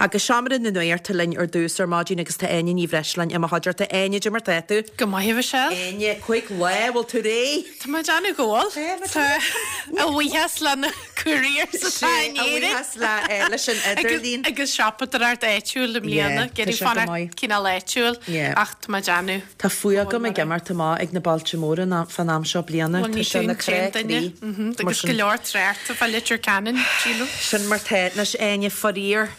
Agus Seomra na Nuachta linn ar dtús ar maidin agus tá Áine Ní Bhreisleáin i mo chuideachta. Áine, cad é mar tá tú? Go maith, a Mhichelle. Áine, 5 lá, bhfuil tú réidh? Tá mé ag déanamh go bhfuil. Tá. A bhuíochas le na couriers atá in Éirinn. A bhuíochas le leis an idirlíon. Agus siopadóireacht áitiúil i mbliana. Ag iarraidh fanacht cineál áitiúil ach tá mé ag déanamh. Tá fuath agam ag imeacht amach ag na bailte móra fán am seo bliana. Tá sé ina chrá croí. Agus go leor tráchta fá Leitir Ceanainn, sílim. Sin mar tá. Anois Áine, faraor,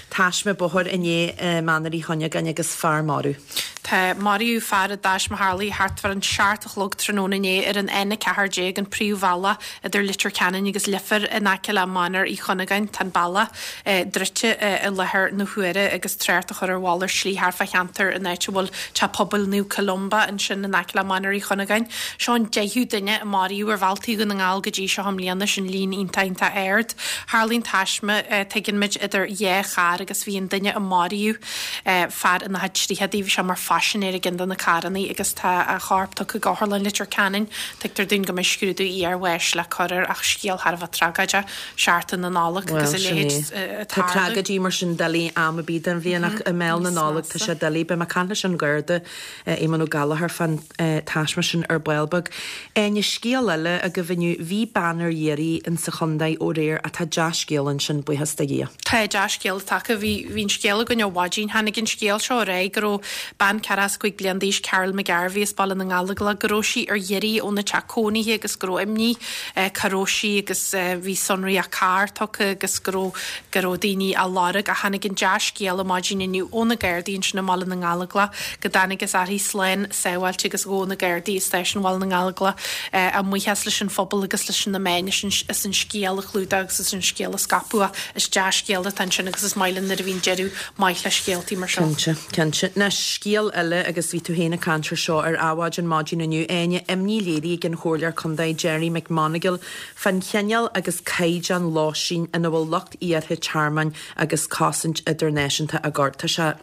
taisme bóthair inné i Mainéar Uí Chuinneagáin agus fear marbh. Tá, maraíodh fear i dtaisme a tharlaigh thart fán 7 a chlog tráthnóna inné ar an N14, an príomhbhealach idir Leitir Ceanainn agus Leifear in aice le Mainéar Uí Chuinneagáin. Tá an bealach druidte i láthair na huaire agus trácht á chur ar mhalairt slí thart fá cheantar an áit a bhfuil Teach Pobail Naomh Columba ansin in aice le Mainéar Uí Chuinneagáin. Seo an deichiú duine a maraíodh ar bhealtaí Dhún na nGall go dtí seo i mbliana, sin líon iontach iontach ard. Tharlaigh an taisme, tuigeann muid, idir dhá charr agus bhí an duine a maraíodh, fear ina chuid tríochadaí, bhí sé mar phaisinéir i gceann de na carrannaí agus tá a chorp tugtha go Otharlann Leitir Ceanainn. Tuigtear dúinn go mbeidh scrúdú iarbháis le cur air ach scéal thar a bheith tragóideach, seachtain na Nollag agus a leithéid ag tarlú. Tá tragóidí mar sin doiligh am ar bith den bhliain ach i mbéal na Nollag tá sé doiligh. Beidh mé ag caint leis an Gharda Éamonn Ó Gallchóir fán taisme sin ar ball beag. Áine, scéal eile agaibh inniu, bhí bean ar iarraidh in sa chontae aréir ach tá dea-scéal ansin, buíochas do Dhia. Tá dea-scéal tagtha. Bhí bhí an scéal againn ó mhaidin. Tháinig an scéal seo ar aghaidh go raibh bean 45 bliain d'aois, Carol McGarvey as Baile na nGallóglach, go raibh sí ar iarraidh óna teach cónaithe agus go raibh imní cá raibh sí agus bhí sonraí a carr tugtha agus go raibh go raibh daoine á lorg ach tháinig an dea-scéala maidin inniu ó na Gardaí ansin i mBaile na nGallóglach go dtángthas uirthi slán sábháilte agus ghabh na Gardaí i Stáisiún Bhaile na nGallóglach a mbuíochas leis an phobal agus leis na meáin as an scéal a chlúdach agus as an scéal a scaipeadh ach is dea-scéal atá ansin agus is maith linn nuair a bhíonn deireadh maith le scéaltaí mar seo. Cinnte, cinnte. Anois, scéal eile agus bhí tú féin ag caint ar seo ar Adhmhaidin maidin inniu, Áine, imní léirithe ag an Chomhairleoir Contae Gerry McMonagall fán chineál agus caighdeán lóistín ina bhfuil lucht iarrtha tearmainn agus cosaint idirnáisiúnta á gcur. Tá sé,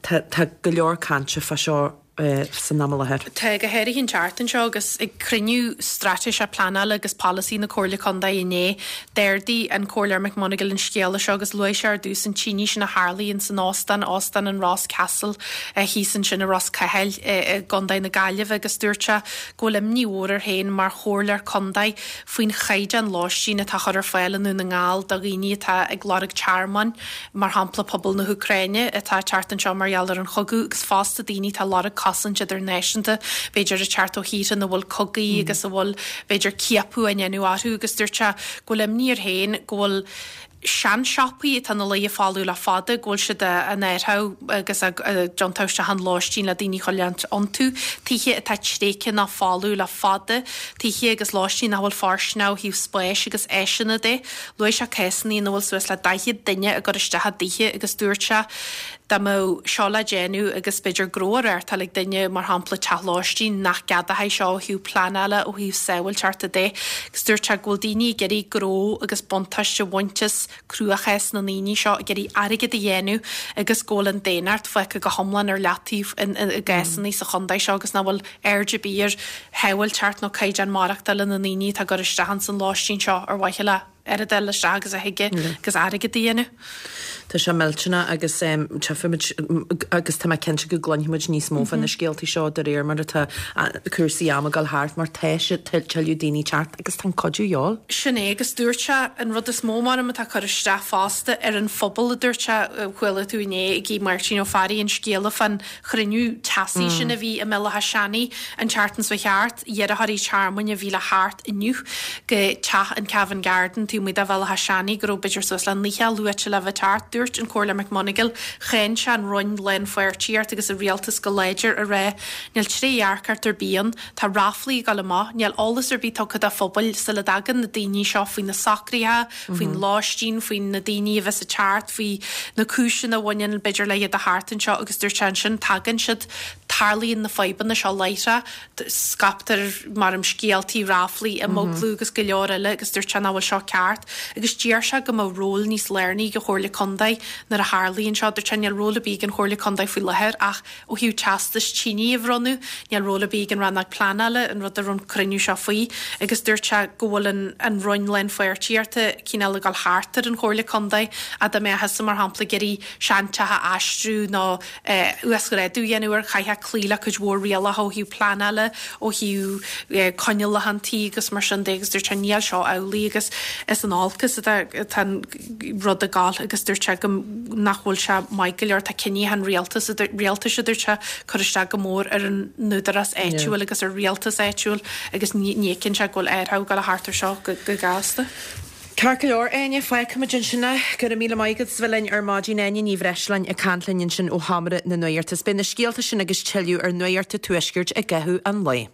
tá, tá go leor cainte fá seo san am i láthair. Tá, go háirithe an tseachtain seo agus ag cruinniú straitéiseach pleanála agus polasaí na Comhairle Contae inné, d'ardaigh an Comhairleoir McMonagall an scéala seo agus luaigh sé ar dtús an tine sin a tharlaigh in san óstán, Óstán an Ross Castle, thíos ansin i Ros Cathail i gContae na Gaillimhe agus dúirt sé go bhfuil imní mhór air féin mar chomhairleoir contae faoin chaighdeán lóistín atá á chur ar fáil i nDún na nGall do dhaoine atá ag lorg tearmainn, mar shampla pobal na hÚcráine atá ag teacht anseo mar gheall ar an chogadh agus fosta daoine atá ag lorg cosaint idirnáisiúnta, b'fhéidir ag teacht ó thíortha ina bhfuil cogaí agus a bhfuil b'fhéidir ciapadh á ndéanamh orthu agus dúirt sé go bhfuil imní air féin go bhfuil seansiopaí atá ina luí folamh le fada, go bhfuil siad á n-áireamh agus á dtiontú isteach in lóistín le daoine a choinneáil iontu, tithe atá tréigthe nó folamh le fada, tithe agus lóistín nach bhfuil fóirsteanach ó thaobh spáis agus áiseanna de. Luaigh sé cásanna ina bhfuil suas le 40 duine á gcur isteach i dtithe agus dúirt sé dá mbeadh seo le déanamh agus b'fhéidir gnó á reáchtáil ag duine, mar shampla teach lóistín, nach gceadófaí seo ó thaobh pleanála, ó thaobh sábháilteachta de. Agus dúirt sé go bhfuil daoine ag iarraidh gnó agus buntáiste a bhaint as cruachás na ndaoine seo, ag iarraidh airgead a dhéanamh agus go bhfuil an daonnacht fágtha go hiomlán ar leataobh i gcásanna sa chontae seo agus nach bhfuil aird ar bith ar shábháilteacht nó caighdeán maireachtála na ndaoine atá ag cur isteach ins an lóistín seo ar mhaithe le oiread a fháil isteach agus a thig agus airgead a dhéanamh. Tá sé millteanach agus tchífimid agus tá mé cinnte go gcluinfimid níos mó fá na scéaltaí seo de réir mar atá cúrsaí ama ag dul thart mar tá sé tuilleadh daoine teacht agus tá an cuidiú de dhíobháil. Sin é agus dúirt sé an rud is mó maram atá ag cur isteach fosta ar an phobal a dúirt sé, chuala tú inné ag Máirtín Ó Fearraigh an scéala fán chruinniú teasaí sin a bhí i mBéal Átha Seanaidh an tseachtain seo thart, iarrthóirí tearmainn a bhí le theacht inniu go teach an Cavan Garden taobh amuigh de Bhéal Átha Seanaidh go raibh b'fhéidir suas le 90 luaite le bheith ag teacht. Dúirt an Comhairleoir McMonagall, cháin sé an Roinn Lánpháirtíocht agus an Rialtas go láidir a rá níl trédhearcacht ar bith ann, tá ráflaí ag dul amach, níl eolas ar bith tugtha do phobail sula dtagann na daoine seo faoi na socruithe, faoin lóistín, faoi na daoine a bheas ag teacht, faoi na cúiseanna a bhaineann, b'fhéidir, le iad a theacht anseo agus dúirt sé ansin, tagann siad, tarlaíonn na fadhbanna seo láithreach, scaiptear, maram, scéaltaí, ráflaí, imeaglú agus go leor eile agus dúirt sé nach bhfuil seo ceart. ceart agus d'iarr sé go mbeadh ról níos lárnaí ag an Chomhairle Contae nuair a tharlaíonn seo. Dúirt sé níl ról ar bith ag an Chomhairle Contae faoi láthair ach ó thaobh teastais tine a bhronnadh, níl ról ar bith ag an Rannóg Pleanála, an rud a raibh an cruinniú seo faoi, agus dúirt sé go bhfuil an an Roinn Lánpháirtíochta cineál ag dul thart ar an Chomhairle Contae, dá mbeadh thusa mar shampla ag iarraidh seanteach a aistriú nó uasghrádú a dhéanamh air, chaithfeá cloí le cuid mhór rialacha ó thaobh pleanála, ó thaobh coinníollacha an tí agus mar sin de agus dúirt sé níl seo amhlaidh agus is in olcas atá an rud ag gabháil agus dúirt sé go nach bhfuil sé maith go leor, tá cinntí an rialtas, rialtais a dúirt sé, cur isteach go mór ar an n-údarás áitiúil agus ar rialtas áitiúil agus ní fheiceann sé go bhfuil athrú ag dul a theacht ar seo go gasta. Ceart go leor, Áine, fágfaimid ansin é. Go raibh míle maith agat as bheith linn ar maidin. Áine Ní Bhreisleáin ag caint linn ansin ó Sheomra na Nuachta. Beidh na scéalta sin agus tuilleadh ar Nuacht an Tuaiscirt i gcaitheamh an lae.